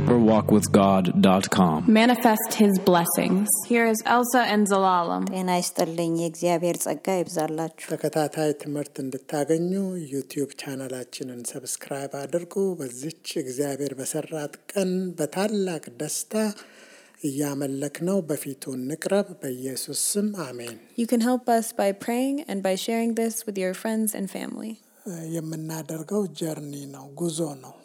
deeperwalkwithgod.com. Manifest His blessings. Here is Elsa and Zalalam. ጤና ይስጥልኝ የእግዚአብሔር ጸጋ ይብዛላችሁ። ተከታታይ ትምህርት እንድታገኙ ዩቲዩብ ቻናላችንን ሰብስክራይብ አድርጉ። በዚች እግዚአብሔር በሰራት ቀን በታላቅ ደስታ እያመለክነው በፊቱ እንቅረብ። በኢየሱስ ስም አሜን። You can help us by praying and by sharing this with your friends and family. የምናደርገው ጀርኒ ነው፣ ጉዞ ነው።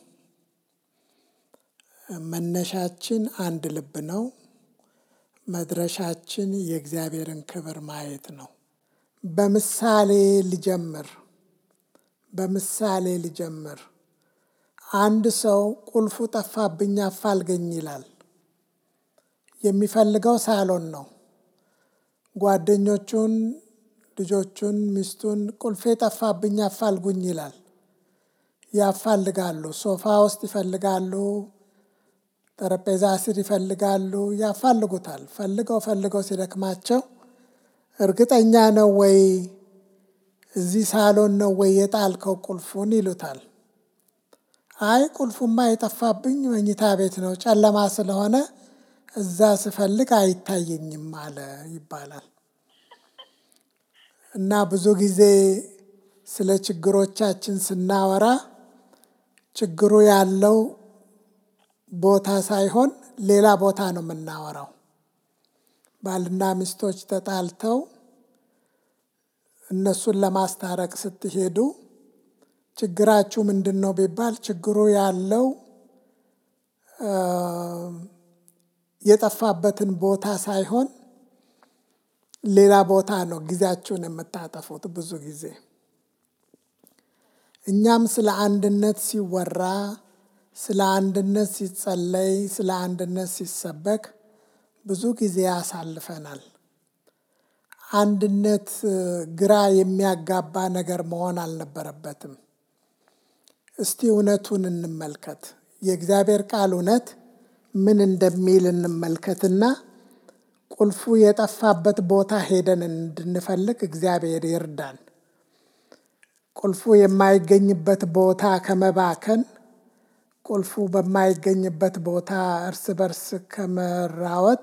መነሻችን አንድ ልብ ነው። መድረሻችን የእግዚአብሔርን ክብር ማየት ነው። በምሳሌ ልጀምር። አንድ ሰው ቁልፉ ጠፋብኝ አፋልገኝ ይላል። የሚፈልገው ሳሎን ነው። ጓደኞቹን፣ ልጆቹን፣ ሚስቱን ቁልፌ ጠፋብኝ አፋልጉኝ ይላል። ያፋልጋሉ። ሶፋ ውስጥ ይፈልጋሉ፣ ጠረጴዛ ስር ይፈልጋሉ፣ ያፋልጉታል። ፈልገው ሲደክማቸው እርግጠኛ ነው ወይ እዚህ ሳሎን ነው ወይ የጣልከው ቁልፉን ይሉታል። አይ ቁልፉማ የጠፋብኝ መኝታ ቤት ነው፣ ጨለማ ስለሆነ እዛ ስፈልግ አይታየኝም አለ ይባላል። እና ብዙ ጊዜ ስለ ችግሮቻችን ስናወራ ችግሩ ያለው ቦታ ሳይሆን ሌላ ቦታ ነው የምናወራው። ባልና ሚስቶች ተጣልተው እነሱን ለማስታረቅ ስትሄዱ ችግራችሁ ምንድን ነው ቢባል ችግሩ ያለው የጠፋበትን ቦታ ሳይሆን ሌላ ቦታ ነው ጊዜያችሁን የምታጠፉት ብዙ ጊዜ። እኛም ስለ አንድነት ሲወራ፣ ስለ አንድነት ሲጸለይ፣ ስለ አንድነት ሲሰበክ ብዙ ጊዜ ያሳልፈናል። አንድነት ግራ የሚያጋባ ነገር መሆን አልነበረበትም። እስቲ እውነቱን እንመልከት። የእግዚአብሔር ቃል እውነት ምን እንደሚል እንመልከትና ቁልፉ የጠፋበት ቦታ ሄደን እንድንፈልግ እግዚአብሔር ይርዳን። ቁልፉ የማይገኝበት ቦታ ከመባከን፣ ቁልፉ በማይገኝበት ቦታ እርስ በርስ ከመራወጥ፣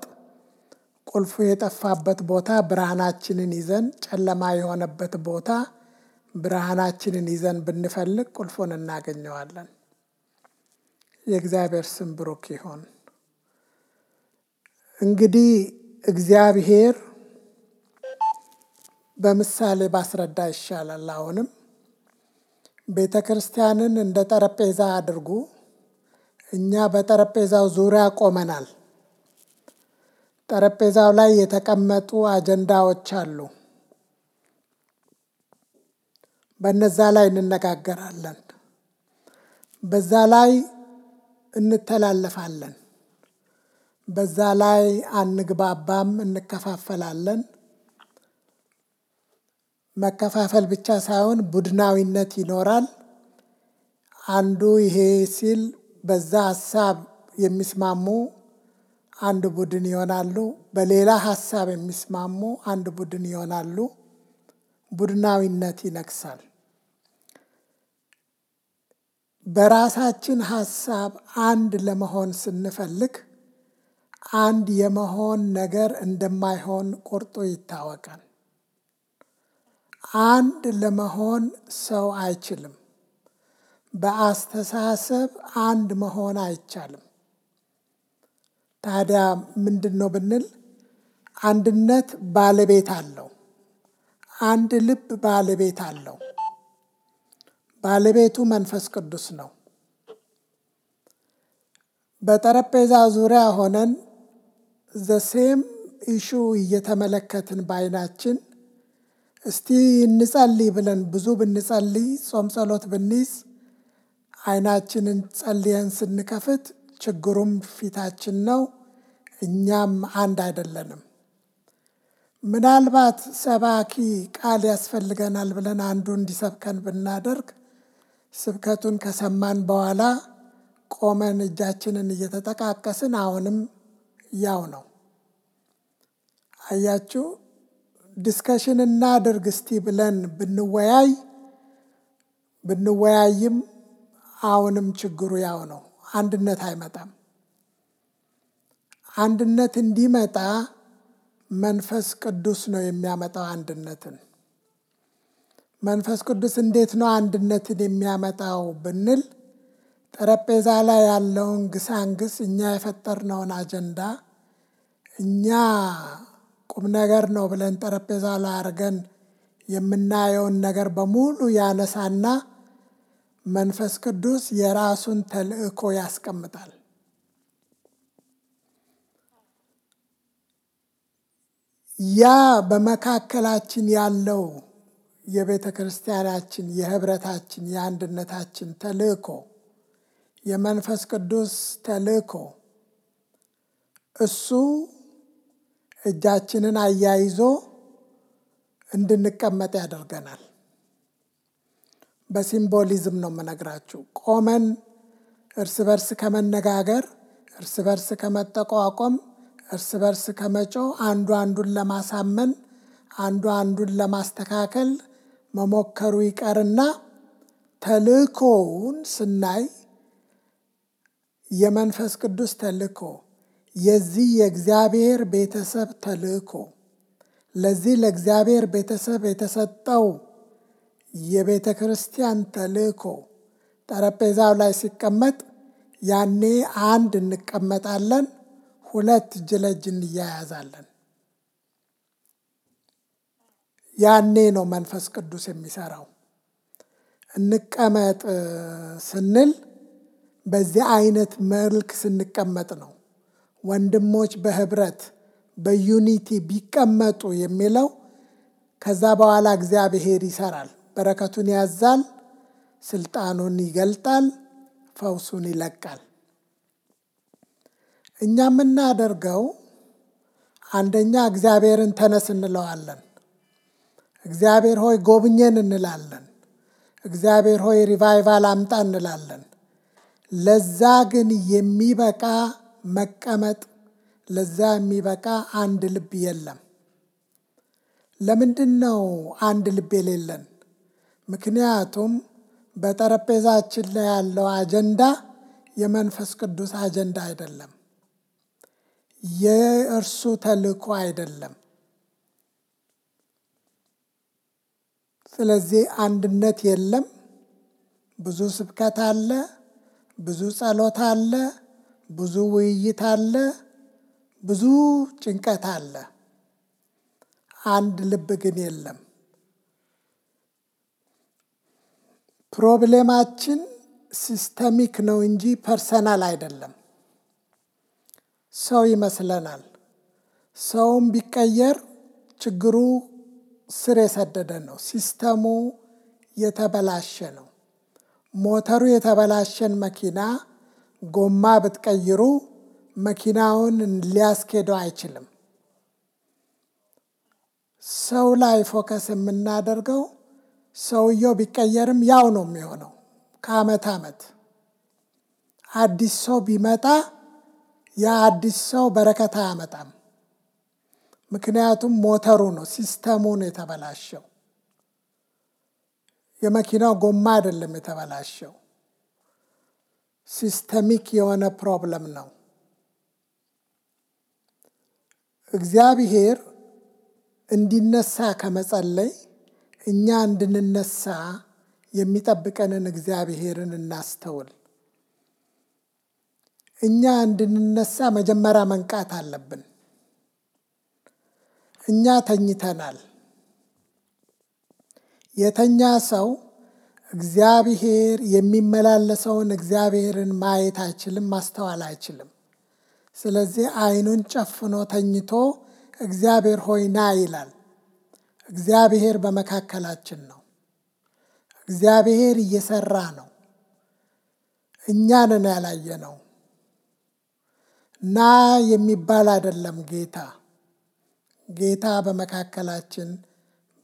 ቁልፉ የጠፋበት ቦታ ብርሃናችንን ይዘን፣ ጨለማ የሆነበት ቦታ ብርሃናችንን ይዘን ብንፈልግ ቁልፉን እናገኘዋለን። የእግዚአብሔር ስም ብሩክ ይሁን። እንግዲህ እግዚአብሔር በምሳሌ ባስረዳ ይሻላል። አሁንም ቤተ ክርስቲያንን እንደ ጠረጴዛ አድርጉ። እኛ በጠረጴዛው ዙሪያ ቆመናል። ጠረጴዛው ላይ የተቀመጡ አጀንዳዎች አሉ። በነዛ ላይ እንነጋገራለን። በዛ ላይ እንተላለፋለን። በዛ ላይ አንግባባም፣ እንከፋፈላለን። መከፋፈል ብቻ ሳይሆን ቡድናዊነት ይኖራል። አንዱ ይሄ ሲል በዛ ሀሳብ የሚስማሙ አንድ ቡድን ይሆናሉ። በሌላ ሀሳብ የሚስማሙ አንድ ቡድን ይሆናሉ። ቡድናዊነት ይነግሳል። በራሳችን ሀሳብ አንድ ለመሆን ስንፈልግ አንድ የመሆን ነገር እንደማይሆን ቁርጡ ይታወቃል። አንድ ለመሆን ሰው አይችልም። በአስተሳሰብ አንድ መሆን አይቻልም። ታዲያ ምንድን ነው ብንል አንድነት ባለቤት አለው። አንድ ልብ ባለቤት አለው። ባለቤቱ መንፈስ ቅዱስ ነው። በጠረጴዛ ዙሪያ ሆነን ዘሴም ኢሹ እየተመለከትን በዓይናችን እስቲ እንጸልይ ብለን ብዙ ብንጸልይ፣ ጾም ጸሎት ብንይዝ፣ ዓይናችንን ጸልየን ስንከፍት ችግሩም ፊታችን ነው። እኛም አንድ አይደለንም። ምናልባት ሰባኪ ቃል ያስፈልገናል ብለን አንዱ እንዲሰብከን ብናደርግ ስብከቱን ከሰማን በኋላ ቆመን እጃችንን እየተጠቃቀስን አሁንም ያው ነው። አያችሁ፣ ዲስከሽን እናድርግ እስቲ ብለን ብንወያይም አሁንም ችግሩ ያው ነው። አንድነት አይመጣም። አንድነት እንዲመጣ መንፈስ ቅዱስ ነው የሚያመጣው አንድነትን። መንፈስ ቅዱስ እንዴት ነው አንድነትን የሚያመጣው ብንል ጠረጴዛ ላይ ያለውን ግሳንግስ እኛ የፈጠርነውን አጀንዳ እኛ ቁም ነገር ነው ብለን ጠረጴዛ ላይ አድርገን የምናየውን ነገር በሙሉ ያነሳና መንፈስ ቅዱስ የራሱን ተልእኮ ያስቀምጣል። ያ በመካከላችን ያለው የቤተ ክርስቲያናችን የህብረታችን የአንድነታችን ተልእኮ የመንፈስ ቅዱስ ተልእኮ እሱ እጃችንን አያይዞ እንድንቀመጥ ያደርገናል። በሲምቦሊዝም ነው የምነግራችሁ። ቆመን እርስ በርስ ከመነጋገር፣ እርስ በርስ ከመጠቋቆም፣ እርስ በርስ ከመጮህ፣ አንዱ አንዱን ለማሳመን፣ አንዱ አንዱን ለማስተካከል መሞከሩ ይቀርና ተልእኮውን ስናይ የመንፈስ ቅዱስ ተልእኮ የዚህ የእግዚአብሔር ቤተሰብ ተልእኮ ለዚህ ለእግዚአብሔር ቤተሰብ የተሰጠው የቤተ ክርስቲያን ተልእኮ ጠረጴዛው ላይ ሲቀመጥ ያኔ አንድ እንቀመጣለን፣ ሁለት እጅ ለእጅ እንያያዛለን። ያኔ ነው መንፈስ ቅዱስ የሚሰራው። እንቀመጥ ስንል በዚህ አይነት መልክ ስንቀመጥ ነው። ወንድሞች በህብረት በዩኒቲ ቢቀመጡ የሚለው ከዛ በኋላ እግዚአብሔር ይሰራል። በረከቱን ያዛል፣ ስልጣኑን ይገልጣል፣ ፈውሱን ይለቃል። እኛ የምናደርገው አንደኛ እግዚአብሔርን ተነስ እንለዋለን። እግዚአብሔር ሆይ ጎብኘን እንላለን። እግዚአብሔር ሆይ ሪቫይቫል አምጣ እንላለን። ለዛ ግን የሚበቃ መቀመጥ፣ ለዛ የሚበቃ አንድ ልብ የለም። ለምንድን ነው አንድ ልብ የሌለን? ምክንያቱም በጠረጴዛችን ላይ ያለው አጀንዳ የመንፈስ ቅዱስ አጀንዳ አይደለም፣ የእርሱ ተልእኮ አይደለም። ስለዚህ አንድነት የለም። ብዙ ስብከት አለ፣ ብዙ ጸሎት አለ፣ ብዙ ውይይት አለ፣ ብዙ ጭንቀት አለ። አንድ ልብ ግን የለም። ፕሮብሌማችን ሲስተሚክ ነው እንጂ ፐርሰናል አይደለም። ሰው ይመስለናል። ሰውም ቢቀየር ችግሩ ስር የሰደደ ነው። ሲስተሙ የተበላሸ ነው። ሞተሩ የተበላሸን መኪና ጎማ ብትቀይሩ መኪናውን ሊያስኬደው አይችልም። ሰው ላይ ፎከስ የምናደርገው ሰውየው ቢቀየርም ያው ነው የሚሆነው። ከዓመት ዓመት አዲስ ሰው ቢመጣ ያ አዲስ ሰው በረከት አያመጣም። ምክንያቱም ሞተሩ ነው፣ ሲስተሙ ነው የተበላሸው። የመኪናው ጎማ አይደለም የተበላሸው፣ ሲስተሚክ የሆነ ፕሮብለም ነው። እግዚአብሔር እንዲነሳ ከመጸለይ እኛ እንድንነሳ የሚጠብቀንን እግዚአብሔርን እናስተውል። እኛ እንድንነሳ መጀመሪያ መንቃት አለብን። እኛ ተኝተናል። የተኛ ሰው እግዚአብሔር የሚመላለሰውን እግዚአብሔርን ማየት አይችልም፣ ማስተዋል አይችልም። ስለዚህ ዓይኑን ጨፍኖ ተኝቶ እግዚአብሔር ሆይ ና ይላል። እግዚአብሔር በመካከላችን ነው። እግዚአብሔር እየሰራ ነው። እኛ ነን ያላየነው። ና የሚባል አይደለም ጌታ። ጌታ በመካከላችን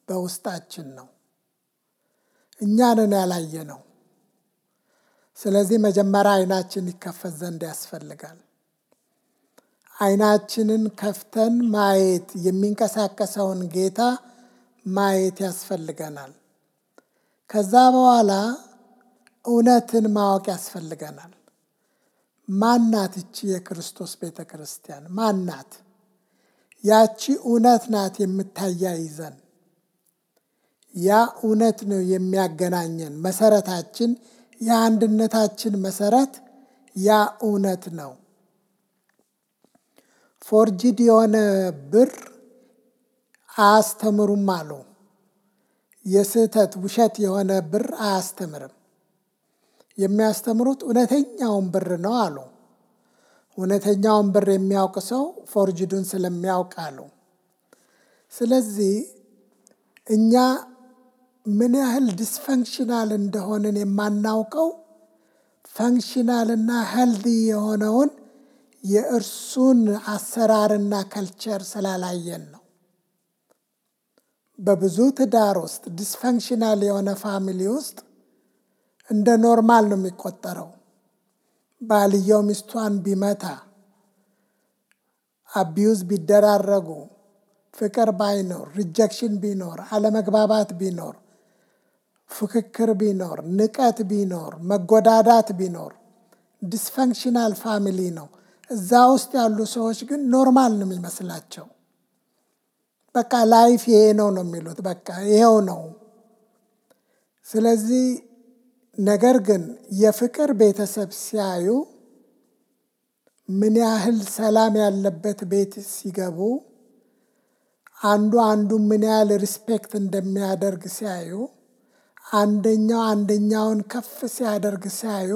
በውስጣችን ነው። እኛ ነን ያላየነው። ስለዚህ መጀመሪያ ዓይናችን ይከፈት ዘንድ ያስፈልጋል። ዓይናችንን ከፍተን ማየት የሚንቀሳቀሰውን ጌታ ማየት ያስፈልገናል። ከዛ በኋላ እውነትን ማወቅ ያስፈልገናል። ማናት እቺ የክርስቶስ ቤተ ክርስቲያን? ማናት? ያቺ እውነት ናት የምታያይዘን። ያ እውነት ነው የሚያገናኘን። መሰረታችን፣ የአንድነታችን መሰረት ያ እውነት ነው። ፎርጅድ የሆነ ብር አያስተምሩም አሉ። የስህተት ውሸት የሆነ ብር አያስተምርም። የሚያስተምሩት እውነተኛውን ብር ነው አሉ። እውነተኛውን ብር የሚያውቅ ሰው ፎርጅዱን ስለሚያውቅ አሉ። ስለዚህ እኛ ምን ያህል ዲስፈንክሽናል እንደሆንን የማናውቀው ፈንክሽናልና ሄልዚ የሆነውን የእርሱን አሰራርና ከልቸር ስላላየን ነው። በብዙ ትዳር ውስጥ ዲስፈንክሽናል የሆነ ፋሚሊ ውስጥ እንደ ኖርማል ነው የሚቆጠረው። ባልየው ሚስቷን ቢመታ፣ አቢዩዝ ቢደራረጉ፣ ፍቅር ባይኖር፣ ሪጀክሽን ቢኖር፣ አለመግባባት ቢኖር፣ ፍክክር ቢኖር፣ ንቀት ቢኖር፣ መጎዳዳት ቢኖር ዲስፈንክሽናል ፋሚሊ ነው። እዛ ውስጥ ያሉ ሰዎች ግን ኖርማል ነው የሚመስላቸው። በቃ ላይፍ ይሄ ነው የሚሉት። በቃ ይሄው ነው። ስለዚህ ነገር ግን የፍቅር ቤተሰብ ሲያዩ ምን ያህል ሰላም ያለበት ቤት ሲገቡ አንዱ ምን ያህል ሪስፔክት እንደሚያደርግ ሲያዩ አንደኛው አንደኛውን ከፍ ሲያደርግ ሲያዩ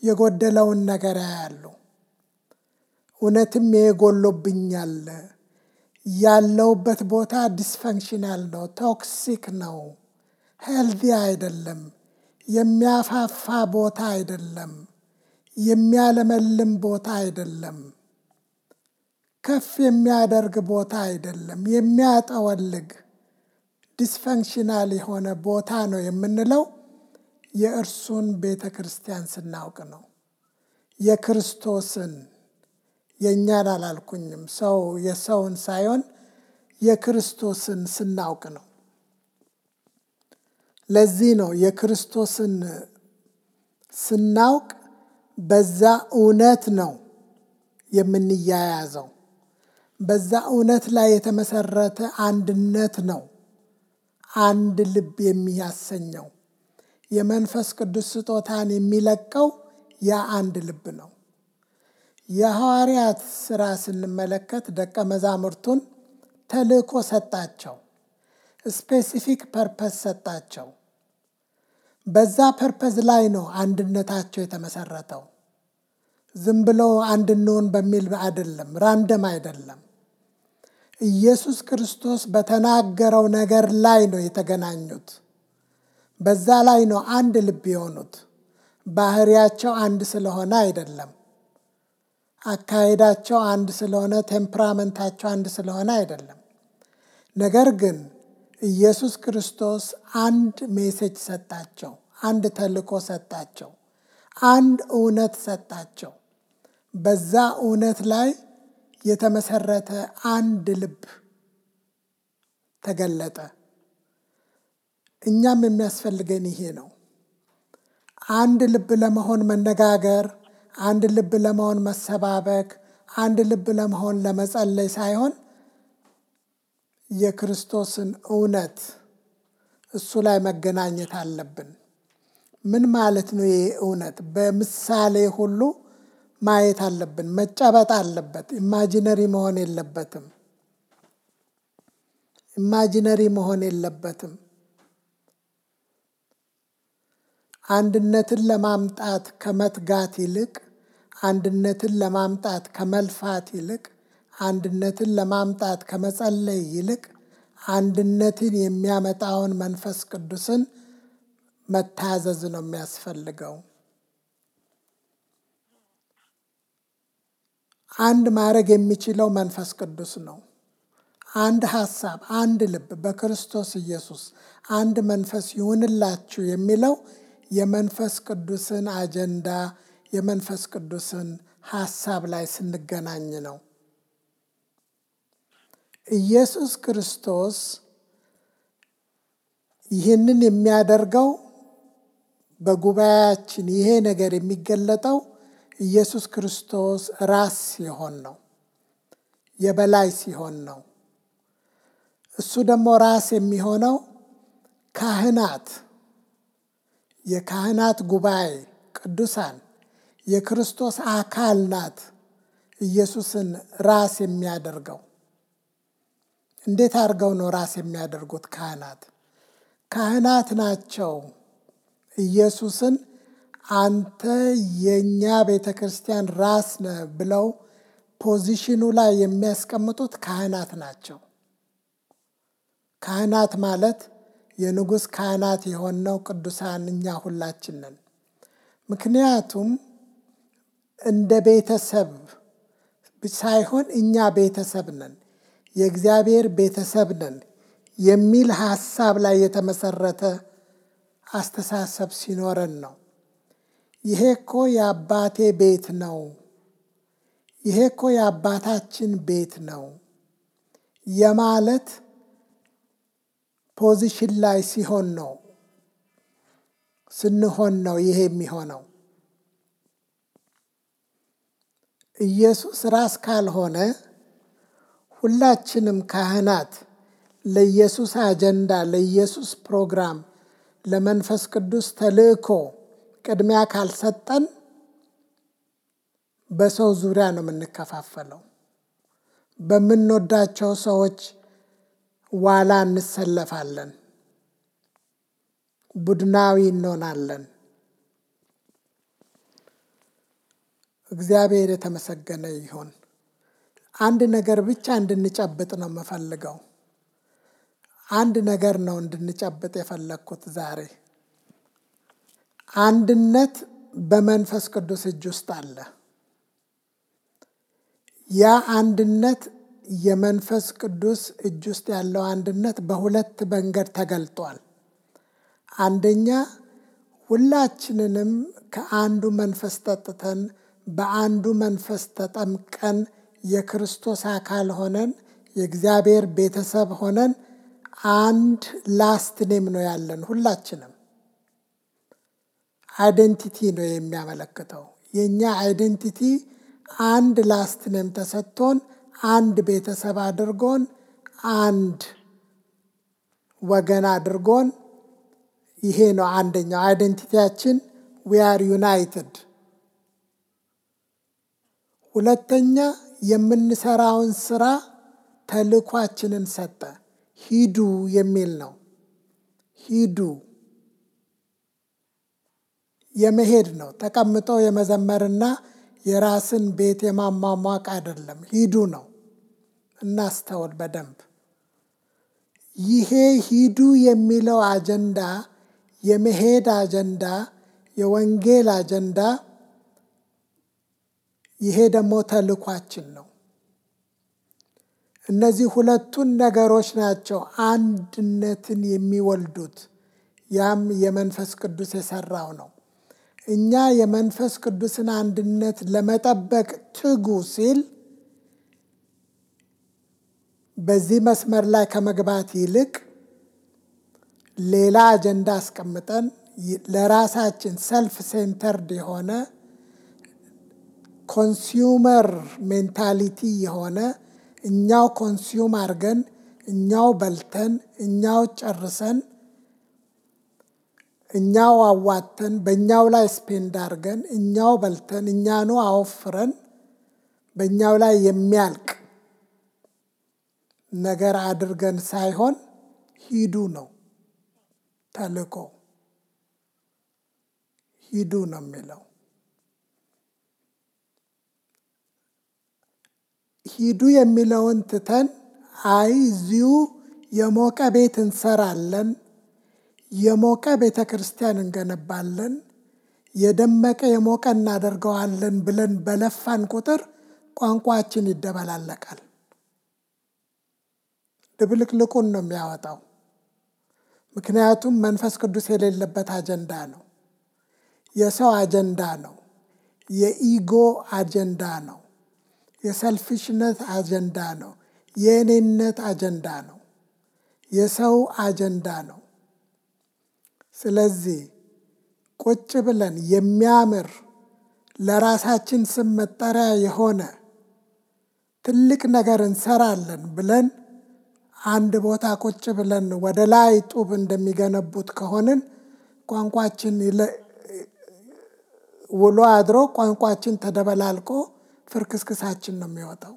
የጎደለውን ነገር ያያሉ። እውነትም ይሄ ጎሎብኛል፣ ያለውበት ቦታ ዲስፈንክሽናል ነው፣ ቶክሲክ ነው፣ ሄልዚ አይደለም፣ የሚያፋፋ ቦታ አይደለም፣ የሚያለመልም ቦታ አይደለም፣ ከፍ የሚያደርግ ቦታ አይደለም፣ የሚያጠወልግ ዲስፈንክሽናል የሆነ ቦታ ነው የምንለው የእርሱን ቤተ ክርስቲያን ስናውቅ ነው። የክርስቶስን፣ የእኛን አላልኩኝም፣ ሰው የሰውን ሳይሆን የክርስቶስን ስናውቅ ነው። ለዚህ ነው የክርስቶስን ስናውቅ በዛ እውነት ነው የምንያያዘው። በዛ እውነት ላይ የተመሰረተ አንድነት ነው አንድ ልብ የሚያሰኘው። የመንፈስ ቅዱስ ስጦታን የሚለቀው ያ አንድ ልብ ነው። የሐዋርያት ሥራ ስንመለከት ደቀ መዛሙርቱን ተልእኮ ሰጣቸው። ስፔሲፊክ ፐርፐስ ሰጣቸው። በዛ ፐርፐዝ ላይ ነው አንድነታቸው የተመሰረተው። ዝም ብሎ አንድ እንሆን በሚል አይደለም፣ ራንደም አይደለም። ኢየሱስ ክርስቶስ በተናገረው ነገር ላይ ነው የተገናኙት። በዛ ላይ ነው አንድ ልብ የሆኑት። ባህሪያቸው አንድ ስለሆነ አይደለም። አካሄዳቸው አንድ ስለሆነ፣ ቴምፕራመንታቸው አንድ ስለሆነ አይደለም። ነገር ግን ኢየሱስ ክርስቶስ አንድ ሜሴጅ ሰጣቸው፣ አንድ ተልእኮ ሰጣቸው፣ አንድ እውነት ሰጣቸው። በዛ እውነት ላይ የተመሰረተ አንድ ልብ ተገለጠ። እኛም የሚያስፈልገን ይሄ ነው። አንድ ልብ ለመሆን መነጋገር፣ አንድ ልብ ለመሆን መሰባበክ፣ አንድ ልብ ለመሆን ለመጸለይ ሳይሆን የክርስቶስን እውነት እሱ ላይ መገናኘት አለብን። ምን ማለት ነው ይሄ እውነት? በምሳሌ ሁሉ ማየት አለብን። መጨበጥ አለበት። ኢማጂነሪ መሆን የለበትም። ኢማጂነሪ መሆን የለበትም። አንድነትን ለማምጣት ከመትጋት ይልቅ፣ አንድነትን ለማምጣት ከመልፋት ይልቅ፣ አንድነትን ለማምጣት ከመጸለይ ይልቅ አንድነትን የሚያመጣውን መንፈስ ቅዱስን መታዘዝ ነው የሚያስፈልገው። አንድ ማድረግ የሚችለው መንፈስ ቅዱስ ነው። አንድ ሐሳብ፣ አንድ ልብ በክርስቶስ ኢየሱስ አንድ መንፈስ ይሁንላችሁ የሚለው የመንፈስ ቅዱስን አጀንዳ፣ የመንፈስ ቅዱስን ሐሳብ ላይ ስንገናኝ ነው። ኢየሱስ ክርስቶስ ይህንን የሚያደርገው በጉባኤያችን ይሄ ነገር የሚገለጠው ኢየሱስ ክርስቶስ ራስ ሲሆን ነው፣ የበላይ ሲሆን ነው። እሱ ደግሞ ራስ የሚሆነው ካህናት፣ የካህናት ጉባኤ ቅዱሳን የክርስቶስ አካል ናት ኢየሱስን ራስ የሚያደርገው። እንዴት አድርገው ነው ራስ የሚያደርጉት? ካህናት ናቸው ኢየሱስን አንተ የኛ ቤተክርስቲያን ራስ ነህ ብለው ፖዚሽኑ ላይ የሚያስቀምጡት ካህናት ናቸው። ካህናት ማለት የንጉሥ ካህናት የሆነው ቅዱሳን እኛ ሁላችን ነን። ምክንያቱም እንደ ቤተሰብ ሳይሆን እኛ ቤተሰብ ነን፣ የእግዚአብሔር ቤተሰብ ነን የሚል ሐሳብ ላይ የተመሰረተ አስተሳሰብ ሲኖረን ነው። ይሄ እኮ የአባቴ ቤት ነው፣ ይሄ እኮ የአባታችን ቤት ነው የማለት ፖዚሽን ላይ ስንሆን ነው ይሄ የሚሆነው። ኢየሱስ ራስ ካልሆነ ሁላችንም ካህናት ለኢየሱስ አጀንዳ፣ ለኢየሱስ ፕሮግራም፣ ለመንፈስ ቅዱስ ተልእኮ ቅድሚያ ካልሰጠን በሰው ዙሪያ ነው የምንከፋፈለው። በምንወዳቸው ሰዎች ዋላ እንሰለፋለን፣ ቡድናዊ እንሆናለን። እግዚአብሔር የተመሰገነ ይሁን። አንድ ነገር ብቻ እንድንጨብጥ ነው የምፈልገው። አንድ ነገር ነው እንድንጨብጥ የፈለግኩት ዛሬ። አንድነት በመንፈስ ቅዱስ እጅ ውስጥ አለ። ያ አንድነት የመንፈስ ቅዱስ እጅ ውስጥ ያለው አንድነት በሁለት መንገድ ተገልጧል። አንደኛ ሁላችንንም ከአንዱ መንፈስ ጠጥተን በአንዱ መንፈስ ተጠምቀን የክርስቶስ አካል ሆነን የእግዚአብሔር ቤተሰብ ሆነን አንድ ላስት ኔም ነው ያለን። ሁላችንም አይደንቲቲ ነው የሚያመለክተው። የኛ አይደንቲቲ አንድ ላስት ኔም ተሰጥቶን አንድ ቤተሰብ አድርጎን አንድ ወገን አድርጎን፣ ይሄ ነው አንደኛው አይደንቲቲያችን። ዊ አር ዩናይትድ። ሁለተኛ የምንሰራውን ስራ ተልኳችንን ሰጠ። ሂዱ የሚል ነው። ሂዱ የመሄድ ነው። ተቀምጦ የመዘመርና የራስን ቤት የማሟሟቅ አይደለም። ሂዱ ነው። እናስተውል በደንብ። ይሄ ሂዱ የሚለው አጀንዳ፣ የመሄድ አጀንዳ፣ የወንጌል አጀንዳ፣ ይሄ ደግሞ ተልኳችን ነው። እነዚህ ሁለቱን ነገሮች ናቸው አንድነትን የሚወልዱት። ያም የመንፈስ ቅዱስ የሰራው ነው። እኛ የመንፈስ ቅዱስን አንድነት ለመጠበቅ ትጉ ሲል በዚህ መስመር ላይ ከመግባት ይልቅ ሌላ አጀንዳ አስቀምጠን ለራሳችን ሰልፍ ሴንተርድ የሆነ ኮንሱመር ሜንታሊቲ የሆነ እኛው ኮንሱም አድርገን እኛው በልተን እኛው ጨርሰን እኛው አዋተን በእኛው ላይ ስፔንድ አድርገን እኛው በልተን እኛኑ አወፍረን በእኛው ላይ የሚያልቅ ነገር አድርገን ሳይሆን ሂዱ ነው ተልእኮ። ሂዱ ነው የሚለው። ሂዱ የሚለውን ትተን አይ እዚሁ የሞቀ ቤት እንሰራለን፣ የሞቀ ቤተ ክርስቲያን እንገነባለን፣ የደመቀ የሞቀ እናደርገዋለን ብለን በለፋን ቁጥር ቋንቋችን ይደበላለቃል። ድብልቅልቁን ነው የሚያወጣው። ምክንያቱም መንፈስ ቅዱስ የሌለበት አጀንዳ ነው። የሰው አጀንዳ ነው። የኢጎ አጀንዳ ነው። የሰልፊሽነት አጀንዳ ነው። የእኔነት አጀንዳ ነው። የሰው አጀንዳ ነው። ስለዚህ ቁጭ ብለን የሚያምር ለራሳችን ስም መጠሪያ የሆነ ትልቅ ነገር እንሰራለን ብለን አንድ ቦታ ቁጭ ብለን ወደ ላይ ጡብ እንደሚገነቡት ከሆንን ቋንቋችን ውሎ አድሮ ቋንቋችን ተደበላልቆ ፍርክስክሳችን ነው የሚወጣው።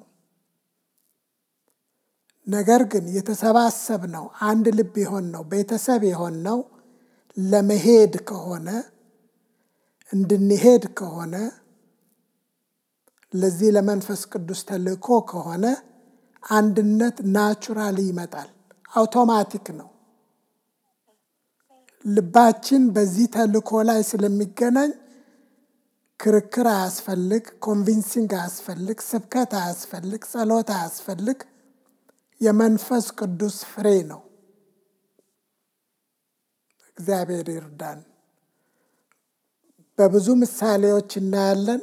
ነገር ግን የተሰባሰብነው አንድ ልብ የሆንነው ቤተሰብ የሆንነው ለመሄድ ከሆነ እንድንሄድ ከሆነ ለዚህ ለመንፈስ ቅዱስ ተልእኮ ከሆነ አንድነት ናቹራሊ ይመጣል፣ አውቶማቲክ ነው። ልባችን በዚህ ተልእኮ ላይ ስለሚገናኝ ክርክር አያስፈልግ፣ ኮንቪንሲንግ አያስፈልግ፣ ስብከት አያስፈልግ፣ ጸሎት አያስፈልግ። የመንፈስ ቅዱስ ፍሬ ነው። እግዚአብሔር ይርዳን። በብዙ ምሳሌዎች እናያለን።